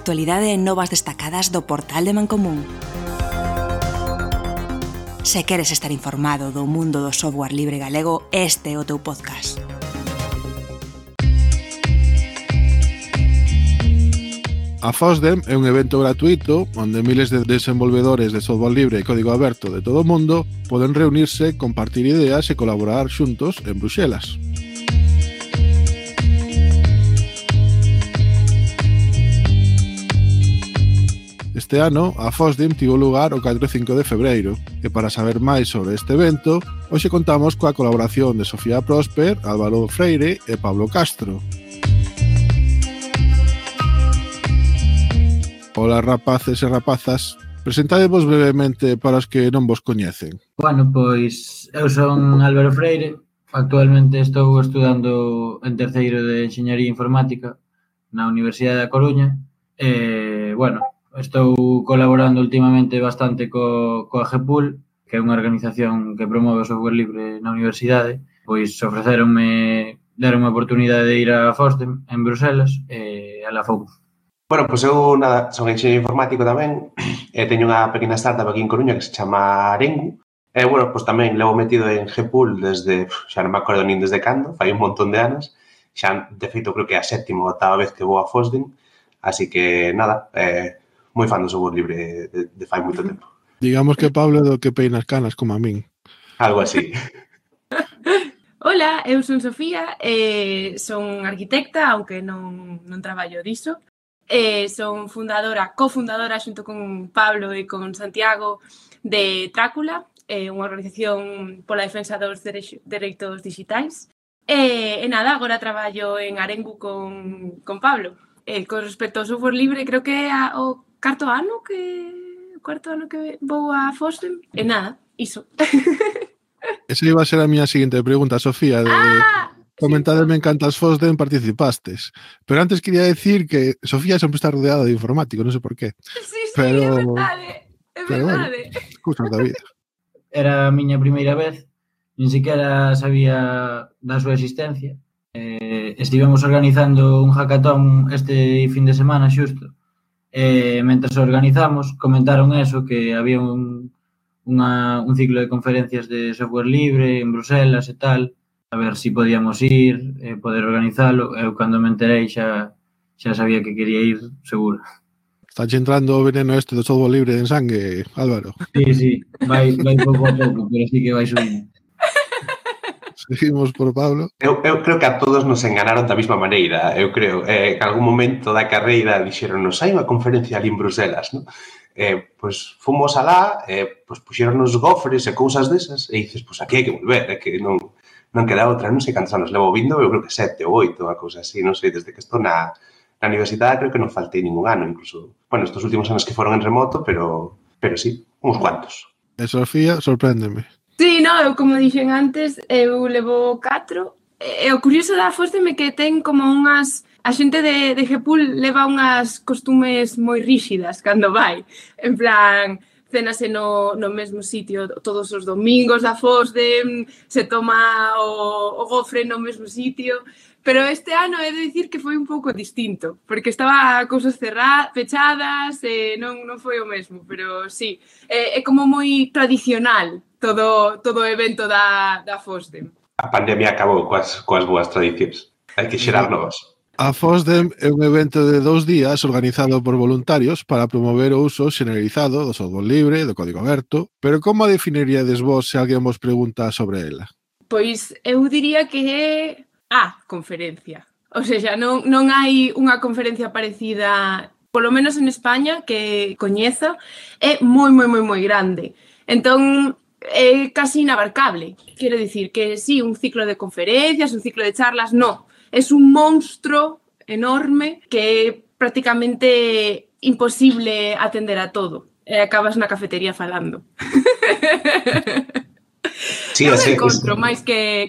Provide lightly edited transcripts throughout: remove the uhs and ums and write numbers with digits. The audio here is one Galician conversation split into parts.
actualidade e novas destacadas do portal de Mancomún. Se queres estar informado do mundo do software libre galego, este é o teu podcast. A FOSDEM é un evento gratuito onde miles de desenvolvedores de software libre e código aberto de todo o mundo poden reunirse, compartir ideas e colaborar xuntos en Bruxelas. Este ano, a FOSDEM tivo lugar o 4 e 5 de febreiro, e para saber máis sobre este evento, hoxe contamos coa colaboración de Sofía Prosper, Álvaro Freire e Pablo Castro. Ola, rapaces e rapazas, presentadevos brevemente para os que non vos coñecen. Bueno, pois eu son Álvaro Freire, actualmente estou estudando en terceiro de Enxeñaría Informática na Universidade da Coruña e, bueno, estou colaborando últimamente bastante coa GEPUL, que é unha organización que promove o software libre na universidade, pois deronme a oportunidade de ir a FOSDEM en Bruselas e alá fomos. Bueno, pois eu son enxeñeiro informático tamén e teño unha pequena startup aquí en Coruña que se chama Arengu e, bueno, pois tamén levo metido en GPUL desde, xa non me acordo nin desde cando, fai un montón de anos, xa, de feito, creo que é a sétima ou oitava vez que vou a FOSDEM, así que, nada, moi fan do software libre de fai moito tempo. Digamos que Pablo é do que peina as canas, como a min. Algo así. Hola, eu son Sofía, son arquitecta, aunque non traballo diso. Son cofundadora xunto con Pablo e con Santiago de Trácula, unha organización pola defensa dos dereitos digitais. E nada, agora traballo en Arengu con Pablo. Con respecto ao software libre, creo que é o cuarto ano que vou a FOSDEM. E nada, iso. Esa iba a ser a miña seguinte pregunta, Sofía, de... Comentademe en cantas FOSDEM participastes. Pero antes quería decir que Sofía sempre está rodeada de informático, non sei por qué. Sí, é verdade. Bueno, cousas da vida. Era a miña primeira vez, nin siquiera sabía da súa existencia. Estivemos organizando un hackathon este fin de semana xusto. Mentre organizamos, comentaron eso, que había un ciclo de conferencias de software libre en Bruselas e tal, a ver si podíamos ir, poder organizalo. Eu, cando me enterei, xa sabía que quería ir, seguro. Está entrando o veneno este do software libre en sangue, Álvaro. Sí, vai pouco a pouco, pero sí que vai subindo. Seguimos por Pablo. Eu creo que a todos nos enganaron da mesma maneira, eu creo. En algún momento da carreira dixeronnos, hai unha conferencia ali en Bruselas, non? Pois fomos alá, pois puxeronnos gofres e cousas desas, e dices, pois aquí hai que volver, é que non queda outra, non sei cantos anos levo vindo, eu creo que 7 ou 8, unha cousa así, non sei, desde que estou na universidade creo que non faltei ningún ano, incluso, bueno, estos últimos anos que foron en remoto, pero sí, uns cuantos. E Sofía, sorpréndeme. Sí, eu, como dixen antes, eu levo 4, e o curioso da FOSDEM é que ten como unhas... A xente de GPUL leva unhas costumes moi ríxidas cando vai, en plan... Cénase no mesmo sitio todos os domingos da FOSDEM, se toma o gofre no mesmo sitio, pero este ano he de dicir que foi un pouco distinto, porque estaba cousas pechadas e non foi o mesmo, pero sí, é como moi tradicional todo o evento da FOSDEM. A pandemia acabou coas boas tradicións, hai que xerar novas. A FOSDEM é un evento de 2 días organizado por voluntarios para promover o uso xeneralizado do software libre, do código aberto, pero como a definiríades vos se alguén vos pregunta sobre ela? Pois eu diría que é a conferencia. O sea, non hai unha conferencia parecida, polo menos en España, que coñeza, é moi grande. Entón, é casi inabarcable. Quero dicir que sí, un ciclo de conferencias, un ciclo de charlas, no. Es un monstro enorme que é prácticamente imposible atender a todo. E acabas na cafetería falando. Sí, non encontro máis que...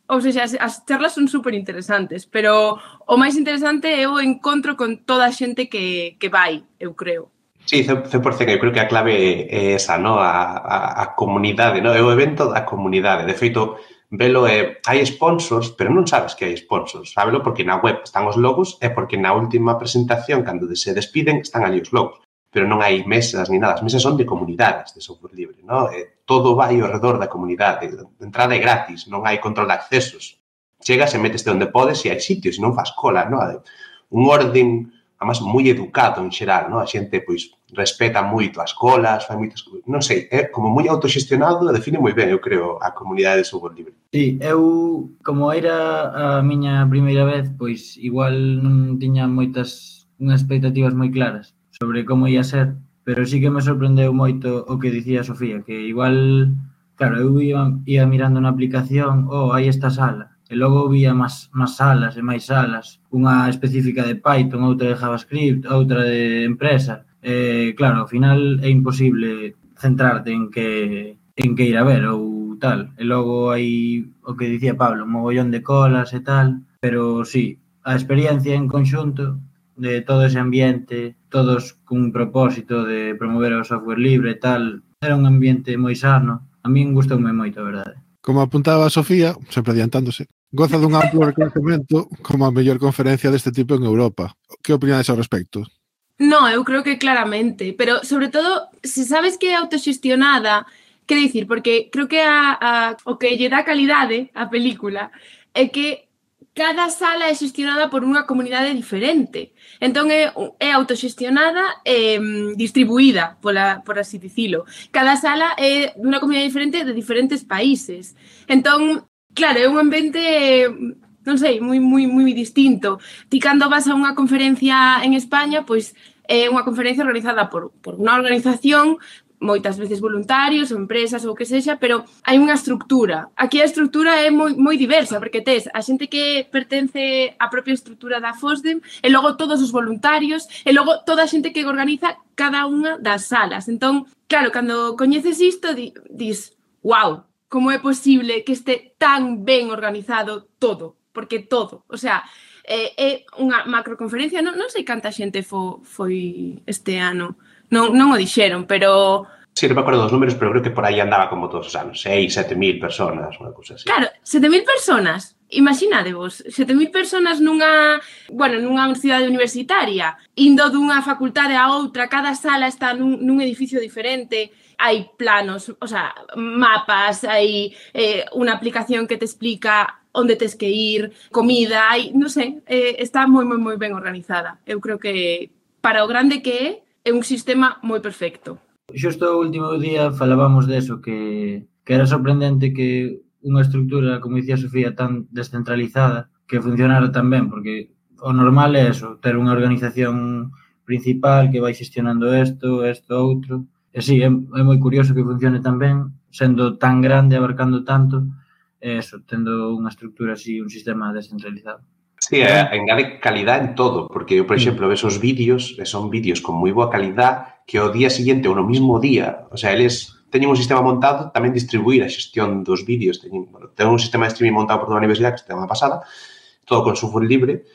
Ou seja, as charlas son super interesantes, pero o máis interesante é o encontro con toda a xente que vai, eu creo. Sí, 100%, eu creo que a clave é esa, no? A comunidade, no? É o evento da comunidade. De feito, velo hai sponsors, pero non sabes que hai sponsors, sábelo porque na web están os logos e porque na última presentación, cando se despiden, están ali os logos, pero non hai mesas ni nada, as mesas son de comunidades de software libre, ¿no? Todo vai ao redor da comunidade, a entrada é gratis, non hai control de accesos, chegas e meteste onde podes e hai sitios, e non fas cola, ¿no? Un orden, además, moi educado en xeral, ¿no? A xente, pois, respeta moito as colas, fai moitas cousas, non sei, é como moi autoxestionado, define moi ben, eu creo, a comunidade de software libre. Sí, eu, como era a miña primeira vez, pois igual non tiña unhas expectativas moi claras sobre como ia ser, pero sí que me sorprendeu moito o que dicía Sofía, que igual, claro, eu ia mirando na aplicación, hai esta sala, e logo vía máis salas e máis salas, unha específica de Python, outra de JavaScript, outra de empresa. Claro, ao final é imposible centrarte en que ir a ver ou tal. E logo hai o que dicía Pablo, un mogollón de colas e tal, pero sí, a experiencia en conxunto de todo ese ambiente, todos cun propósito de promover o software libre e tal, era un ambiente moi sano. A min gustoume moito, a verdade. Como apuntaba a Sofía, sempre adiantándose, goza dun amplo reconhecemento como a mellor conferencia deste tipo en Europa. Que opinades ao respecto? No, eu creo que claramente, pero sobre todo, se sabes que é autoxestionada, que dicir, porque creo que o que lle dá calidade á película é que cada sala é xestionada por unha comunidade diferente. Entón é autoxestionada e distribuída, por así dicilo. Cada sala é dunha comunidade diferente de diferentes países. Entón, claro, é un ambiente, non sei, moi distinto. Ti cando vas a unha conferencia en España, pois é unha conferencia organizada por unha organización, moitas veces voluntarios ou empresas ou que sexa, pero hai unha estructura. Aquí a estructura é moi diversa, porque tes a xente que pertence á propia estructura da FOSDEM e logo todos os voluntarios e logo toda a xente que organiza cada unha das salas. Entón, claro, cando coñeces isto, dis, wow, como é posible que este tan ben organizado todo? Porque todo, o sea, é unha macroconferencia, non sei canta xente foi este ano, non o dixeron, pero... Sí, non me acordo dos números, pero creo que por aí andaba como todos os anos, 6.000, 7.000 personas, unha cousa así. Claro, 7.000 personas, imaginadevos, 7.000 personas nunha cidade universitaria, indo dunha facultade a outra, cada sala está nun edificio diferente, hai planos, o sea, mapas, hai unha aplicación que te explica onde tes que ir, comida, hai, non sei, está moi ben organizada. Eu creo que para o grande que é un sistema moi perfecto. Xusto o último día falábamos deso, que era sorprendente que unha estructura, como dicía Sofía, tan descentralizada, que funcionara tan ben, porque o normal é eso, ter unha organización principal que vai xestionando isto, outro. E sí, é moi curioso que funcione tan ben, sendo tan grande, abarcando tanto, e eso, tendo unha estructura así, un sistema descentralizado. Sí, engade calidad en todo, porque eu, por exemplo, ves os vídeos, e son vídeos con moi boa calidad, que o día siguiente ou no mismo día, o sea, eles teñen un sistema montado, tamén distribuir a xestión dos vídeos, teñen un sistema de streaming montado por toda a universidade, que está unha pasada, todo con software libre,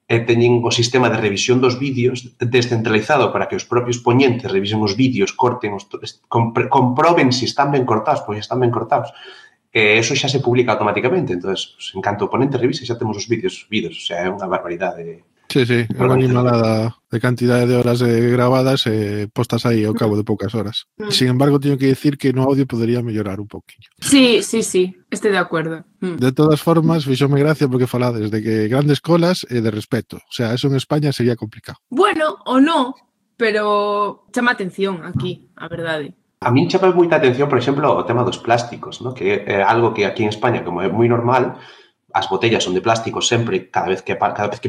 e teñen o sistema de revisión dos vídeos descentralizado para que os propios poñentes revisen os vídeos, corten, comproben se están ben cortados, pois están ben cortados. Eso xa se publica automáticamente, entonces, en canto o ponente revise, xa temos os vídeos subidos, o sea, é unha barbaridade. Sí, é unha animalada de cantidade de horas grabadas e postas aí ao cabo de poucas horas. Sin embargo, teño que dicir que no audio podería mellorar un pouquinho. Sí, estou de acordo. De todas formas, fixome gracia porque falades de que grandes colas e de respeto. O sea, eso en España sería complicado. Bueno, o no, pero chama atención aquí, a verdade. A min chama moita atención, por exemplo, o tema dos plásticos, ¿no? Que é algo que aquí en España, como é moi normal, as botellas son de plástico sempre, cada vez que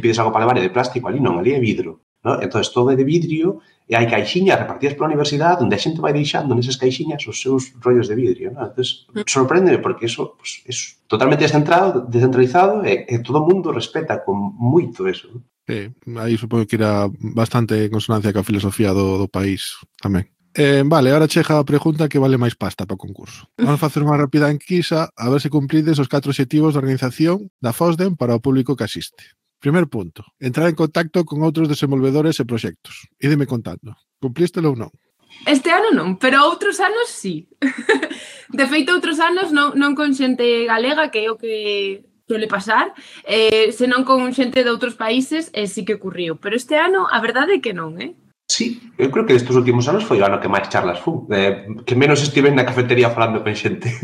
pides algo para levar é de plástico, ali non, ali é vidro, ¿no? Entón, todo é de vidrio e hai caixinhas repartidas pola universidade onde a xente vai deixando nesas caixinhas os seus rollos de vidrio, ¿no? Entón, sorprende porque eso pues, é totalmente descentralizado e todo o mundo respeta con moito eso, ¿no? Sí, aí supongo que irá bastante en consonancia ca filosofía do país tamén. Vale, ahora chega a pregunta que vale máis pasta para o concurso. Vamos facer unha rápida enquisa a ver se cumprides os 4 obxectivos de organización da FOSDEM para o público que asiste. Primer punto, entrar en contacto con outros desenvolvedores e proxectos. Ídeme contando, cumplístelo ou non? Este ano non, pero outros anos sí. De feito, outros anos non con xente galega, que é o que suele pasar, senón con xente de outros países, sí que ocurriu. Pero este ano, a verdade é que non, Sí, eu creo que estes últimos anos foi o ano que máis charlas fun. Que menos estive na cafetería falando con xente.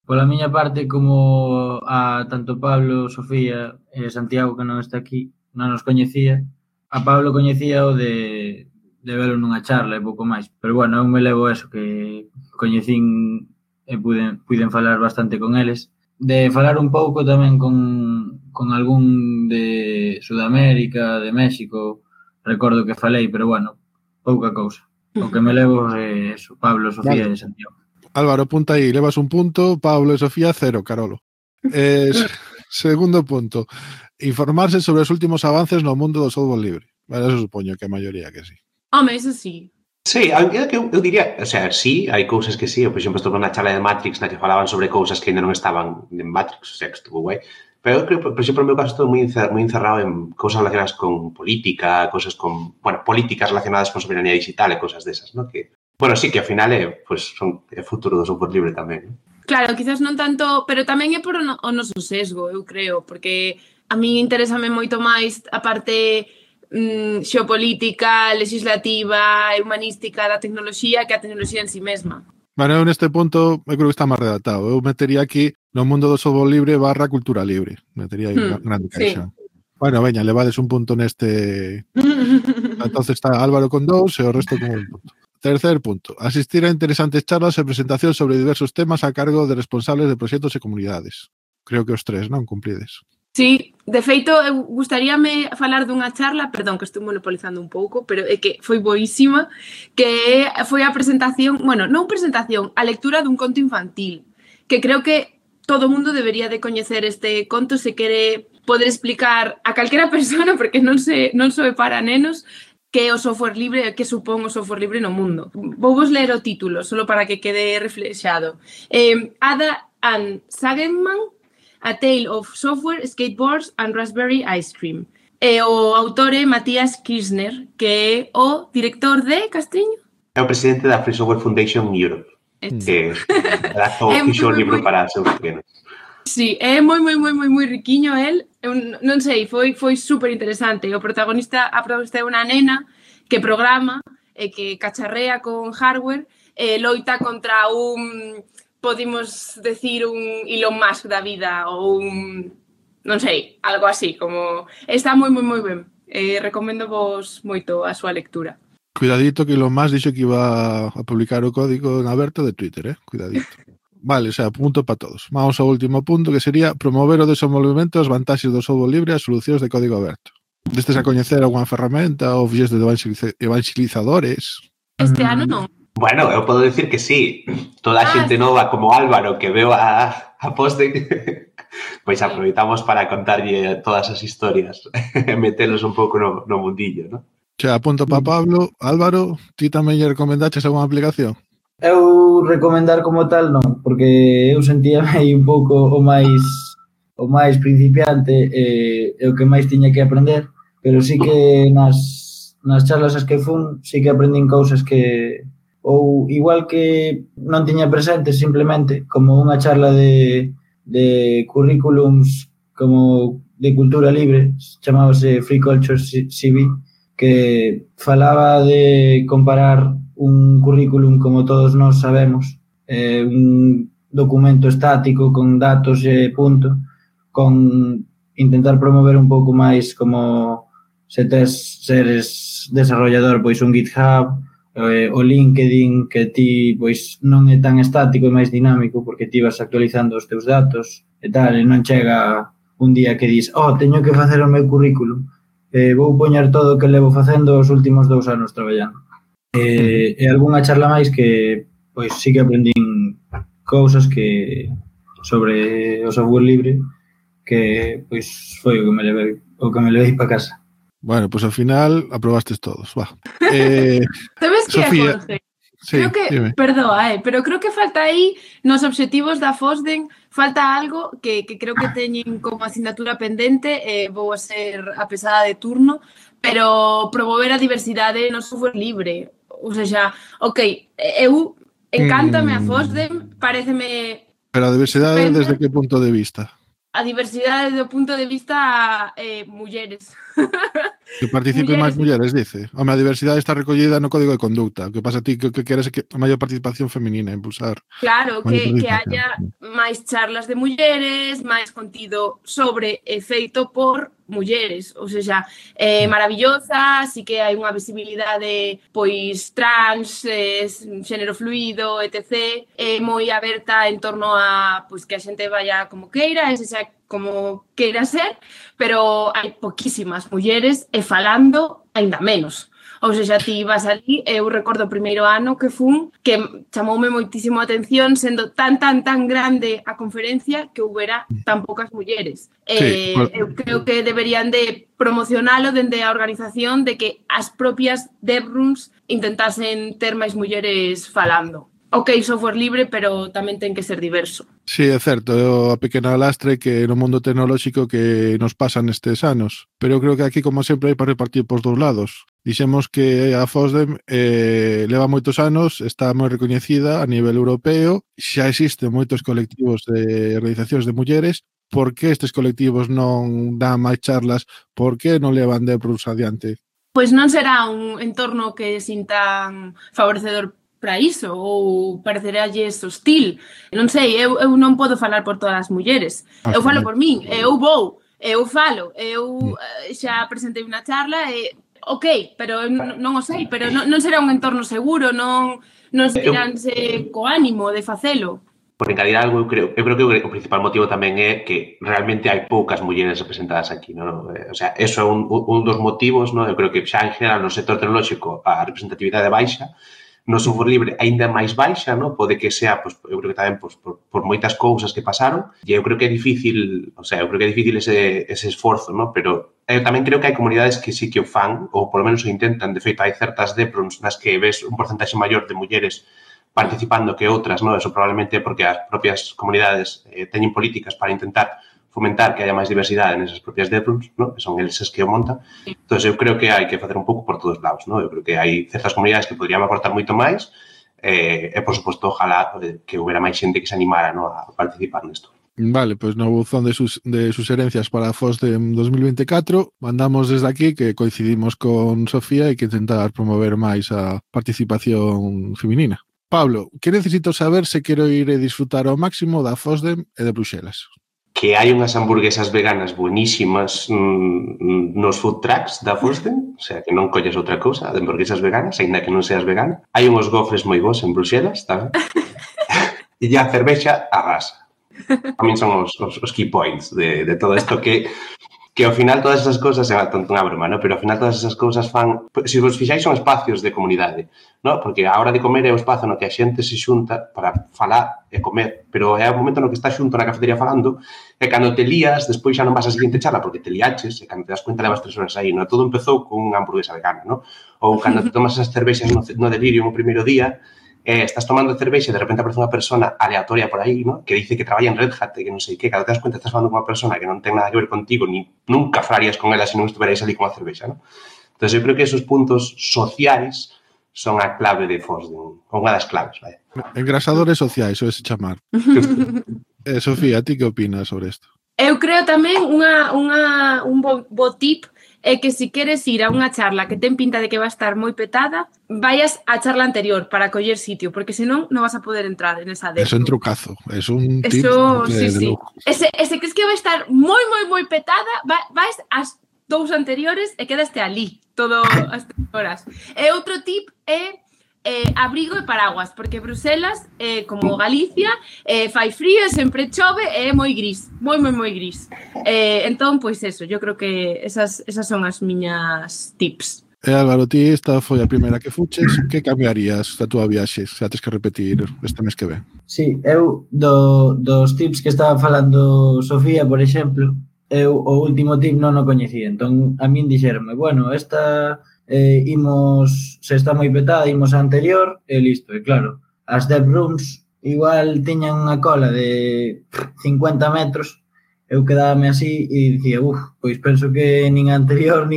Pola miña parte, como a tanto Pablo, Sofía e Santiago, que non está aquí, non nos coñecía, a Pablo coñecía o de velo nunha charla e pouco máis. Pero bueno, eu me levo eso, que coñecín e puiden falar bastante con eles. De falar un pouco tamén con algún de Sudamérica, de México, recordo que falei, pero bueno, pouca cousa. O que me levo é eso, Pablo, Sofía e Santiago. Álvaro, apunta aí, levas un punto, Pablo e Sofía 0, Carolo. Segundo punto, informarse sobre os últimos avances no mundo do software libre. Bueno, eso supoño que a maioría que sí. Home, eso sí. Sí, eu diría, o sea, sí, hai cousas que sí. Eu, por exemplo, estuve na charla de Matrix na que falaban sobre cousas que ainda non estaban en Matrix, o sea, que estuvo guai. Pero eu creo, por exemplo, no meu caso, estou moi encerrado en cousas relacionadas con política, cousas con, bueno, políticas relacionadas con soberanía digital e cousas desas, ¿no? Que, bueno, sí, que ao final é, pues, son o futuro do software libre tamén, ¿no? Claro, quizás non tanto, pero tamén é por o noso sesgo, eu creo, porque a mí interésame moito máis a parte xeopolítica, legislativa e humanística da tecnoloxía que a tecnoloxía en sí mesma. Bueno, eu neste punto eu creo que está máis redactado. Eu metería aquí no mundo do software libre / cultura libre. Metería aí unha grande caixa. Sí. Bueno, veña, levades un punto neste... Entonces está Álvaro con 2 e o resto con un punto. Tercer punto. Asistir a interesantes charlas e presentación sobre diversos temas a cargo de responsables de proxectos e comunidades. Creo que os 3, non? Cumprides. Sí, de feito, eu gustaríame falar dunha charla, perdón, que estou monopolizando un pouco, pero é que foi boísima, que foi a presentación, bueno, non presentación, a lectura dun conto infantil, que creo que todo o mundo debería de coñecer este conto se quere poder explicar a calquera persona, porque non só é para nenos, que é o software libre e que supón o software libre no mundo. Vouvos ler o título, solo para que quede reflexado. Ada and Sageman, A Tale of Software, Skateboards and Raspberry Ice Cream. E o autor é Matías Kirchner, que é o director de Castriño. É o presidente da Free Software Foundation Europe, que adaptou o fixo libro para seus pequenos. Sí, é moi riquiño el. Eu non sei, foi super interesante. A protagonista é unha nena que programa e que cacharrea con hardware e loita contra un... podemos decir un Elon Musk da vida ou un, non sei, algo así, como está moi ben. Recomendo vos moito a súa lectura. Cuidadito que Elon Musk dixo que iba a publicar o código en aberto de Twitter, Cuidadito. Vale, o sea, punto para todos. Vamos ao último punto, que sería promover o desenvolvemento das vantaxes do software libre e as solucións de código aberto. Destes a coñecer algunha ferramenta ou fixes de evangelizadores? Este ano non. Bueno, eu podo decir que sí. Toda a xente nova como Álvaro que veo a poste, pois aproveitamos para contarlle todas as historias e metelos un pouco no mundillo, ¿no? Xa, punto para Pablo. Álvaro, ti tamén lle recomendaches algunha aplicación? Eu recomendar como tal non, porque eu sentíame aí un pouco o máis principiante e o que máis tiña que aprender, pero sí que nas charlas as que fun, sí que aprendín cousas que ou igual que non tiña presente simplemente como unha charla de currículums como de cultura libre, chamábase Free Culture CV, que falaba de comparar un currículum, como todos nós sabemos, un documento estático con datos e punto, con intentar promover un pouco máis como se seres desarrollador, pois un GitHub, o LinkedIn, que ti pois non é tan estático e máis dinámico porque ti vas actualizando os teus datos e tal, e non chega un día que dis, teño que facer o meu currículum, vou poñer todo o que levo facendo os últimos 2 anos traballando. E algunha charla máis que pois sí que aprendín cousas que sobre o software libre que pois foi o que me levei para casa. Bueno, pues ao final aprobastes todos, va. Sabes que, Jorge? Sí, creo que, dime. Perdoa, pero creo que falta aí nos obxectivos da FOSDEN, falta algo que creo que teñen como asignatura pendente, vou a ser a pesada de turno, pero promover a diversidade no software libre. Ou seja, ok, eu encántame a FOSDEM, pareceme... Pero a diversidade desde que punto de vista? A diversidade do punto de vista mulleres. Que participen máis mulleres, dice. Home, a diversidade está recollida no Código de Conducta. O que pasa a ti que queres é que a maior participación feminina, impulsar. Claro, que haya máis charlas de mulleres, máis contido sobre e feito por mulleres, ou seja, maravillosa, así que hai unha visibilidade pois trans, xénero fluido, etc. Moi aberta en torno a pois que a xente vaya como queira, e sexa como queira ser, pero hai poquísimas mulleres e falando aínda menos. Ou seja, ti vas ali, eu recordo o primeiro ano que fun, que chamoume moitísimo a atención, sendo tan grande a conferencia que houbera tan poucas mulleres. Sí, eu creo que deberían de promocionalo dende a organización de que as propias DevRooms intentasen ter máis mulleres falando. Ok, software libre, pero tamén ten que ser diverso. Sí, é certo, é a pequena lastre que no mundo tecnolóxico que nos pasa nestes anos. Pero eu creo que aquí, como sempre, hai para repartir pos dous lados. Dixemos que a FOSDEM leva moitos anos, está moi recoñecida a nivel europeo, xa existen moitos colectivos de organizacións de mulleres. Por que estes colectivos non dan máis charlas? Por que non levan DevRooms adiante? Pois non será un entorno que sintan favorecedor para iso, ou pareceralles hostil. Non sei, eu non podo falar por todas as mulleres. Eu falo por min, eu vou, eu falo, eu xa presentei unha charla e ok, pero non o sei, pero non será un entorno seguro, non sentiránse co ánimo de facelo. Por encadir algo, eu creo que o principal motivo tamén é que realmente hai poucas mulleres representadas aquí, non? O sea, eso é un dos motivos, non? Eu creo que xa en general no sector tecnolóxico a representatividade baixa, no software libre aínda máis baixa, non? Pode que sea, pois, eu creo que tamén por moitas cousas que pasaron, e eu creo que é difícil, o sea, eu creo que é difícil ese esforzo, non? Pero eu tamén creo que hai comunidades que sí que o fan, ou por lo menos o intentan. De feito, hai certas DevRooms nas que ves un porcentaxe maior de mulleres participando que outras, non? Eso probablemente porque as propias comunidades teñen políticas para intentar fomentar que haya máis diversidade nesas propias DevRooms, ¿no? Que son eles que o montan. Entón, eu creo que hai que facer un pouco por todos lados, ¿no? Eu creo que hai certas comunidades que podrían aportar moito máis e, por suposto, ojalá que houbera máis xente que se animara, ¿no? A participar nesto. Vale, pois no buzón de sugerencias para a FOSDEM 2024 mandamos desde aquí que coincidimos con Sofía e que intentar promover máis a participación feminina. Pablo, que necesito saber se quero ir e disfrutar ao máximo da FOSDEM e de Bruxelas? Que hai unhas hamburguesas veganas buenísimas nos food trucks da FOSDEM, o sea, que non colles outra cousa, de hamburguesas veganas, ainda que non seas vegana. Hai unhos gofres moi bons en Bruxelas, tamén. E a cervexa arrasa. A min son os key points de todo isto que ao final todas esas cousas, é unha broma, ¿no? Pero ao final todas esas cousas fan... Se vos fixáis son espacios de comunidade, ¿no? Porque a hora de comer é o espazo no que a xente se xunta para falar e comer, pero é o momento no que estás xunto na cafetería falando e cando te lías, despois xa non vas a seguinte charla porque te liaches e cando te das cuenta levas 3 horas aí, ¿no? Todo empezou con unha hamburguesa vegana, ¿no? Ou cando te tomas esas cervexas no delirio no primeiro día, estás tomando cervexa e de repente aparece unha persona aleatoria por aí, ¿no? Que dice que traballa en Red Hat e que non sei que, cando te das cuenta estás falando con unha persona que non ten nada que ver contigo, ni nunca falarías con ela se non estuverais ali con a cervexa, ¿no? Entón, eu creo que esos puntos sociais son a clave de FOSDEM, unha das claves, vai. Engrasadores sociais, o ese chamar. Sofía, ti que opinas sobre isto? Eu creo tamén un bo tip é que se queres ir a unha charla que ten pinta de que va a estar moi petada, vayas á charla anterior para coller sitio, porque senón non vas a poder entrar en esa DevRoom. Eso é un trucazo, é un tip de lujo. Ese crees que vai estar moi petada, vais ás 2 anteriores e quedaste ali todo as 3 horas. E outro tip é abrigo e paraguas, porque Bruselas, como Galicia, fai frío, sempre chove e é moi gris, moi gris. Entón, pois eso, yo creo que esas son as miñas tips. Álvaro, ti esta foi a primeira que fuches, que cambiarías da túa viaxe, se tes que repetir este mes que ven? Sí, eu dos tips que estaba falando Sofía, por exemplo, eu o último tip non o coñecía, entón a min dixeronme, bueno, esta... se está moi petada, imos a anterior e listo, e claro, as DevRooms igual tiñan unha cola de 50 metros, eu quedábame así e dicía, pois penso que nin anterior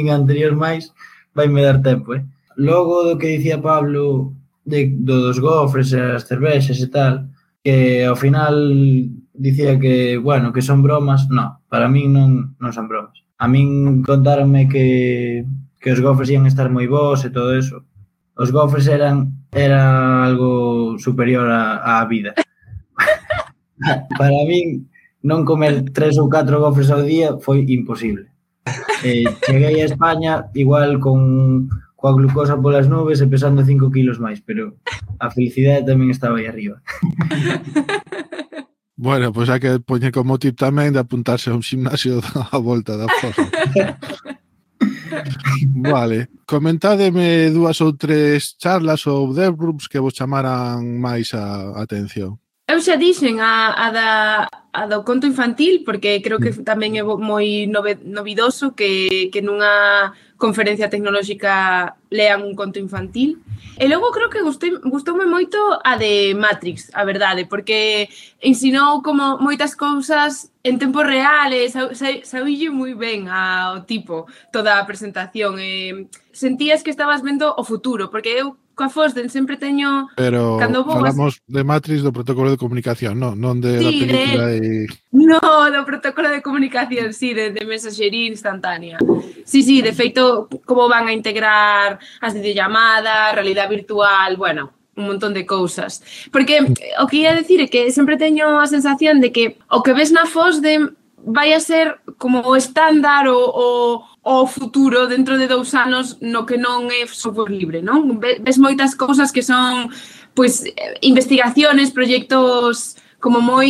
máis vai me dar tempo, logo do que dicía Pablo dos gofres e as cervexas e tal, que ao final dicía que, bueno, que son bromas, no, para min non son bromas. A min contáronme que os gofres ian estar moi bons e todo eso. Os gofres era algo superior á vida. Para min, non comer 3 ou 4 gofres ao día foi imposible. Cheguei a España igual coa glucosa polas nubes e pesando 5 kilos máis, pero a felicidade tamén estaba aí arriba. Bueno, pois hai que poñer como tip tamén de apuntarse a un gimnasio a volta da fosa. Vale, comentádeme 2 ou 3 charlas ou debrooms que vos chamaran máis a atención. Eu xa dixen a do conto infantil, porque creo que tamén é moi novidoso que nunha conferencia tecnolóxica lean un conto infantil. E logo creo que gustoume moito a de Matrix, a verdade, porque ensinou como moitas cousas en tempo real e saílle moi ben ao tipo toda a presentación. Sentías que estabas vendo o futuro, porque eu coa Fosden sempre teño... Pero falamos de Matrix do protocolo de comunicación, non de la película e... No, do protocolo de comunicación, sí, de mensaxería instantánea. Sí, de feito, como van a integrar as videollamadas, realidade virtual, bueno, un montón de cousas. Porque o que ia decir é que sempre teño a sensación de que o que ves na Fosden vai a ser como o estándar o futuro dentro de 2 anos no que non é software libre, non? Ves moitas cousas que son pois investigaciones, proxectos como moi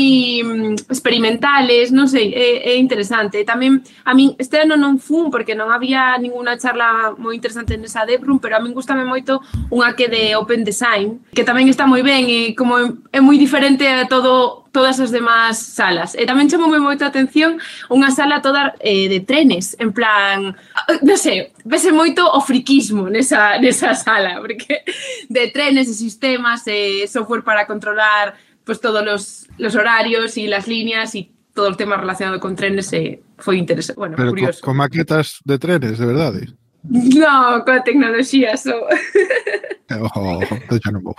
experimentales, non sei, é interesante. Tamén, a min, este ano non fun, porque non había ninguna charla moi interesante nesa Debrum, pero a min gustame moito unha que de Open Design, que tamén está moi ben e como é moi diferente a todas as demás salas. E tamén chamoume moito a atención unha sala toda de trenes, en plan, non sei, vese moito o friquismo nesa sala, porque de trenes e sistemas e software para controlar pues todos los horarios y las líneas y todo el tema relacionado con trenes foi interesante, bueno, pero curioso. Con maquetas de trenes, de verdade? No, con tecnoloxía só. Xa non vou.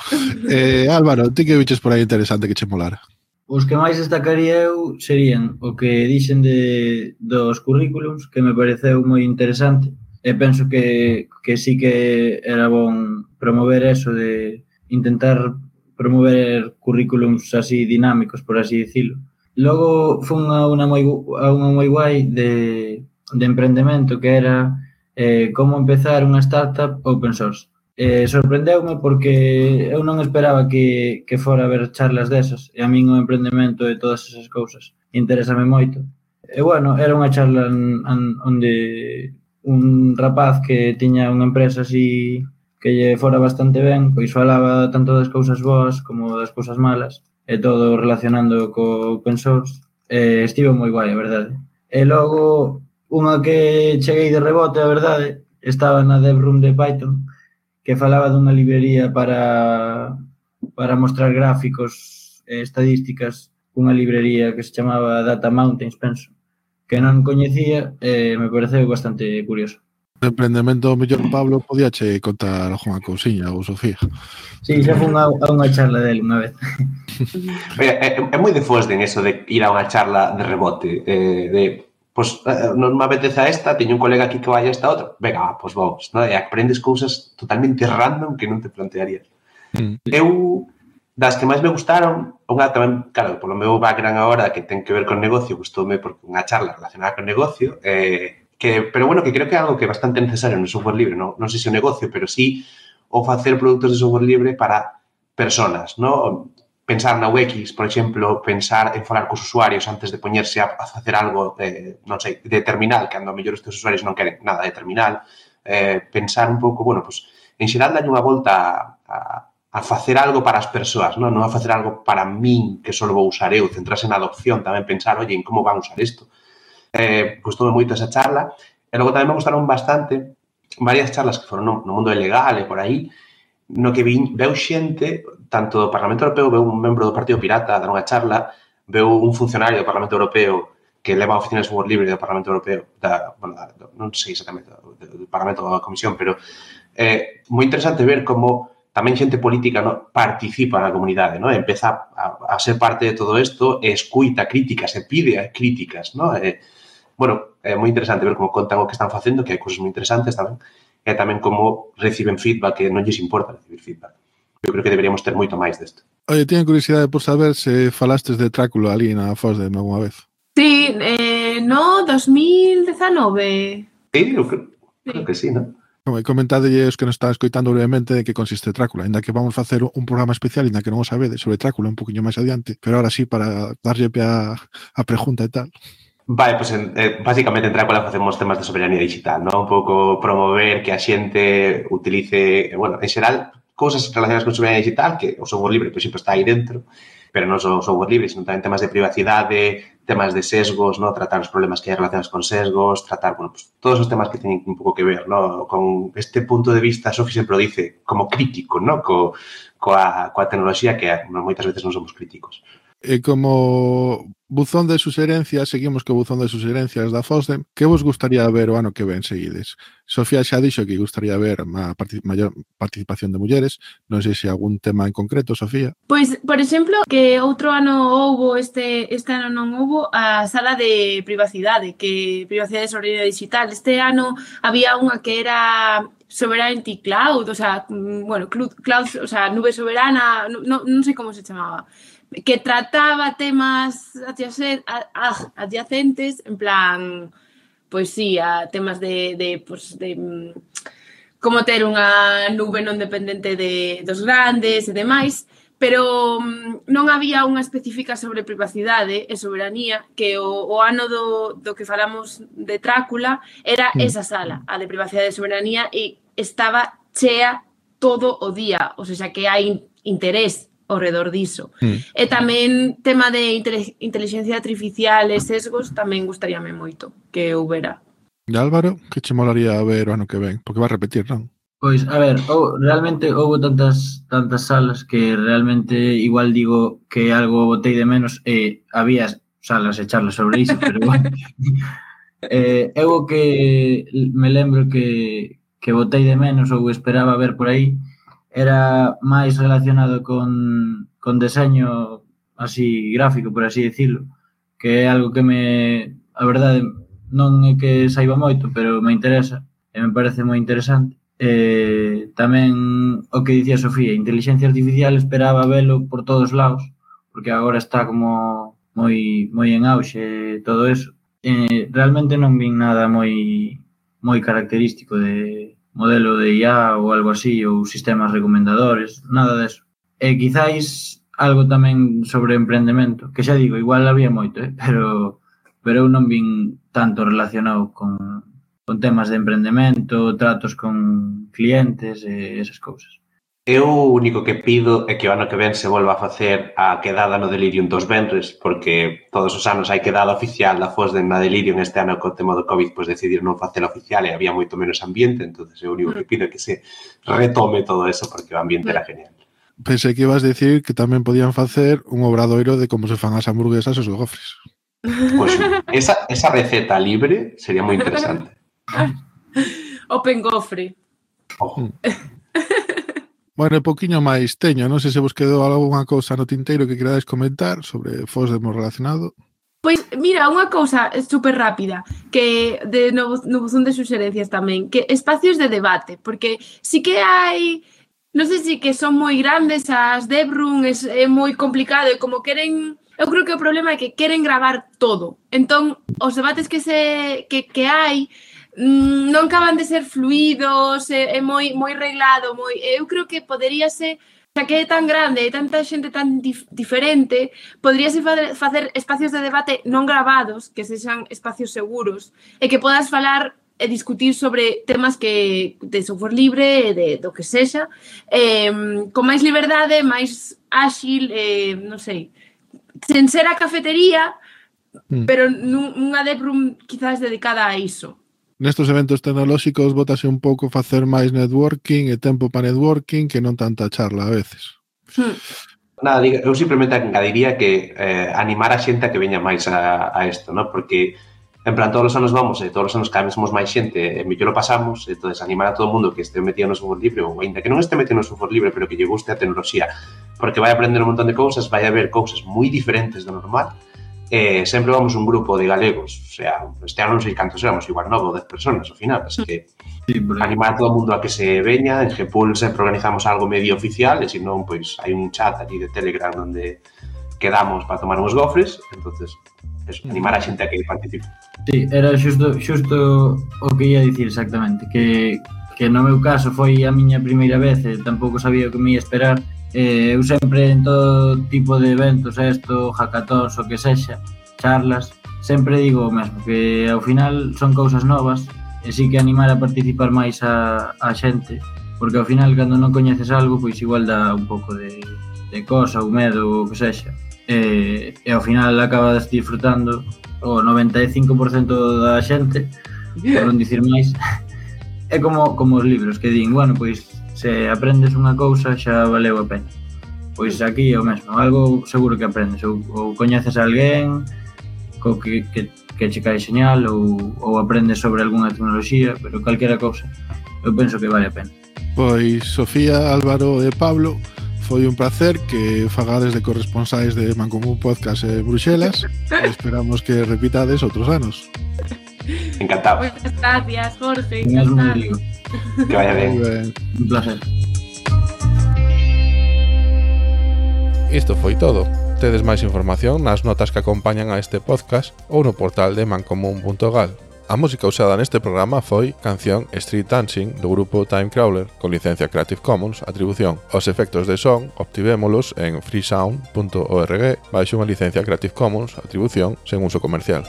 Álvaro, ti que viches por aí interesante que che molara? Os que máis destacaría eu serían o que dixen dos currículums, que me pareceu moi interesante, e penso que sí que era bon promover eso de intentar promover currículums así dinámicos, por así dicilo. Logo fun a unha moi guai de emprendemento que era como empezar unha startup open source. Sorprendeume porque eu non esperaba que fora a haber charlas desas, e a min o emprendemento e todas esas cousas interésame moito. E bueno, era unha charla onde un rapaz que tiña unha empresa así que lle fora bastante ben, pois falaba tanto das cousas boas como das cousas malas, e todo relacionando co open source. Estivo moi guai, a verdade. E logo, unha que cheguei de rebote, a verdade, estaba na Devroom de Python, que falaba dunha librería para mostrar gráficos e estadísticas, unha librería que se chamaba Data Mountains, penso, que non coñecía e me pareceu bastante curioso. De emprendemento, mellor Pablo, podíache contar algunha cousiña ou Sofía. Sí, xa fun a unha charla dele unha vez. É moi de Fosden eso de ir a unha charla de rebote, non me apetece a esta, teño un colega aquí que vai a esta outra, venga, pois vamos, non? E aprendes cousas totalmente random que non te plantearías. Eu, das que máis me gustaron, unha tamén, claro, polo meu background agora, que ten que ver con negocio, gustoume porque unha charla relacionada con negocio, pero bueno, que creo que é algo que é bastante necesario no software libre, non sei se o negocio, pero sí o facer produtos de software libre para personas, non? Pensar na UX, por exemplo, pensar en falar cos usuarios antes de poñerse a facer algo, non sei, de terminal, que ando a mellor estes usuarios non queren nada de terminal, pensar un pouco, bueno, pues, en xeral dalle unha volta a facer algo para as persoas, non a facer algo para min, que só vou usar eu, centrarse na adopción, tamén pensar, oye, en como van usar isto. Gustoume moito esa charla, e logo tamén me gustaron bastante varias charlas que foron no mundo legal e por aí, no que veu xente, tanto do Parlamento Europeo, veu un membro do Partido Pirata a dar unha charla, veu un funcionario do Parlamento Europeo que leva a oficina de software libre do Parlamento Europeo, non sei exactamente, do Parlamento da Comisión, pero moi interesante ver como tamén xente política, no, participa na comunidade, no? Empeza a ser parte de todo isto e escuita críticas, e pide críticas, no? Bueno, é moi interesante ver como contan o que están facendo, que hai cousas moi interesantes tamén, e tamén como reciben feedback, que non lles importa recibir feedback. Eu creo que deberíamos ter moito máis desto. Oye, teño curiosidade por saber se falastes de Drácula ali na FOSDEM alguma vez. Sí, no, 2019. Sí, eu creo que sí, non? Comentadelle os que nos están escoitando brevemente de que consiste Drácula, ainda que vamos facer un programa especial, ainda que non o sabedes, sobre Drácula un poquinho máis adiante, pero ahora sí, para darlle pé a pregunta e tal. Vale, pues básicamente en Drácula facemos temas de soberanía digital, non? Un pouco promover que a xente utilice, bueno, en xeral, cousas relacionadas con soberanía digital, que o software libre, por exemplo, está aí dentro, pero non só o software libre, sino tamén temas de privacidade, temas de sesgos, ¿no? Tratar os problemas que hai relacionados con sesgos, tratar, bueno, pues, todos os temas que teñen un pouco que ver, ¿no? Con este punto de vista, Sofi sempre o dice, como crítico, ¿no? Coa tecnoloxía que moitas veces non somos críticos. E como buzón de suxerencias, seguimos co buzón de suxerencias da FOSDEM, que vos gustaría ver o ano que ven seguides? Sofía xa dixo que gustaría ver maior participación de mulleres, non sei se algún tema en concreto, Sofía. Pois, por exemplo, que outro ano houbo, este ano non houbo a sala de privacidade, que privacidade e soberanía digital. Este ano había unha que era Sovereignty Cloud, o sea, bueno, cloud, o sea, nube soberana, non sei como se chamaba, que trataba temas adyacentes, en plan, pois sí, a temas de como ter unha nube non dependente dos grandes e demais, pero non había unha específica sobre privacidade e soberanía, que o ano do que falamos de Drácula era esa sala, a de privacidade e soberanía, e estaba chea todo o día, ou seja, que hai interés ao redor diso. E tamén tema de inteligencia artificial e sesgos tamén gustaríame moito que houbera. E Álvaro, que che molaría ver o ano que ven? Porque vai repetir, non? Pois, a ver, realmente houve tantas salas que realmente igual digo que algo botei de menos e había salas e charlas sobre iso, pero bueno. Eu que me lembro que botei de menos ou esperaba ver por aí era máis relacionado con deseño así gráfico, por así decirlo, que é algo que a verdade, non é que saiba moito, pero me interesa e me parece moi interesante. Tamén o que dicía Sofía, inteligencia artificial, esperaba velo por todos lados, porque agora está como moi en auxe todo eso. Realmente non vin nada moi característico de modelo de IA ou algo así, ou sistemas recomendadores, nada deso. E quizáis algo tamén sobre emprendemento, que xa digo, igual había moito, pero eu non vin tanto relacionado con temas de emprendemento, tratos con clientes e esas cousas. Eu o único que pido é que o ano que ven se volva a facer a quedada no Delirium dos venres, porque todos os anos hai quedada oficial da FOSDEM na Delirium. Este ano, co tema do COVID, pois decidir non facela oficial e había moito menos ambiente, entonces o único que pido é que se retome todo eso, porque o ambiente era genial. Pensei que ibas a decir que tamén podían facer un obradoiro de como se fan as hamburguesas e os gofres. Pois esa receta libre sería moi interesante. Open gofre. Ojo. Bueno, un poquinho máis teño, non sei se vos quedou algunha cousa no tinteiro que queradais comentar sobre FOSDEM relacionado. Pois, mira, unha cousa super rápida, que no buzón de suxerencias tamén, que espacios de debate, porque sí que hai, non sei se que son moi grandes as Devroom, é moi complicado, e como queren, eu creo que o problema é que queren gravar todo, entón, os debates que hai, non acaban de ser fluidos, é moi reglado, eu creo que poderíase, xa que é tan grande e tanta xente tan diferente, poderíase facer espacios de debate non gravados, que sexan espacios seguros, e que podas falar e discutir sobre temas de software libre e do que sexa, con máis liberdade, máis áxil, non sei, sen ser a cafetería, pero nunha Devroom quizás dedicada a iso. Nestos eventos tecnolóxicos bótase un pouco facer máis networking e tempo para networking que non tanta charla a veces. Nada, eu simplemente engadiría que animar a xente a que veña máis a isto, ¿no? Porque En plan, todos os anos vamos, e todos os anos cada vez somos máis xente, e mellor o pasamos, e entonces animar a todo o mundo que este metido no software libre, ou ainda que non este metido no software libre, pero que lle guste a tecnoloxía, porque vai aprender un montón de cousas, vai haber cousas moi diferentes do normal, sempre vamos un grupo de galegos, o sea, este ano non sei cantos éramos, igual 9 ou 10 personas ao final, así que animar a todo o mundo a que se veña. En Gpool sempre organizamos algo medio oficial, e se non, pois hai un chat ali de Telegram onde quedamos para tomar uns gofres, entonces eso, animar a xente a que participe. Sí, era xusto o que ia dicir exactamente, que no meu caso foi a miña primeira vez e tampouco sabía o que me ia esperar. Eu sempre en todo tipo de eventos, hackathons, o que sexa, charlas, sempre digo o mesmo, que ao final son cousas novas e sí que animar a participar máis a xente, porque ao final cando non coñeces algo, pois igual dá un pouco de cosa ou medo, o que sexa, e ao final acabas disfrutando o 95% da xente, por non dicir máis. É como os libros que din, bueno, pois se aprendes unha cousa xa valeu a pena. Pois aquí é o mesmo, algo seguro que aprendes, ou coñeces a alguén co que che cae señal, ou aprendes sobre algunha tecnoloxía, pero calquera cousa, eu penso que vale a pena. Pois Sofía, Álvaro e Pablo, foi un placer que fagades de corresponsais de Mancomún Podcast en Bruxelas. Esperamos que repitades outros anos. Encantado. Muchas gracias, Jorge. Encantado. Que vaya ben. Un placer. Isto foi todo. Tedes máis información nas notas que acompañan a este podcast ou no portal de mancomún.gal. A música usada neste programa foi canción Street Dancing do grupo Timecrawler con licencia Creative Commons Atribución. Os efectos de son obtivémolos en freesound.org baixo unha licencia Creative Commons Atribución sen uso comercial.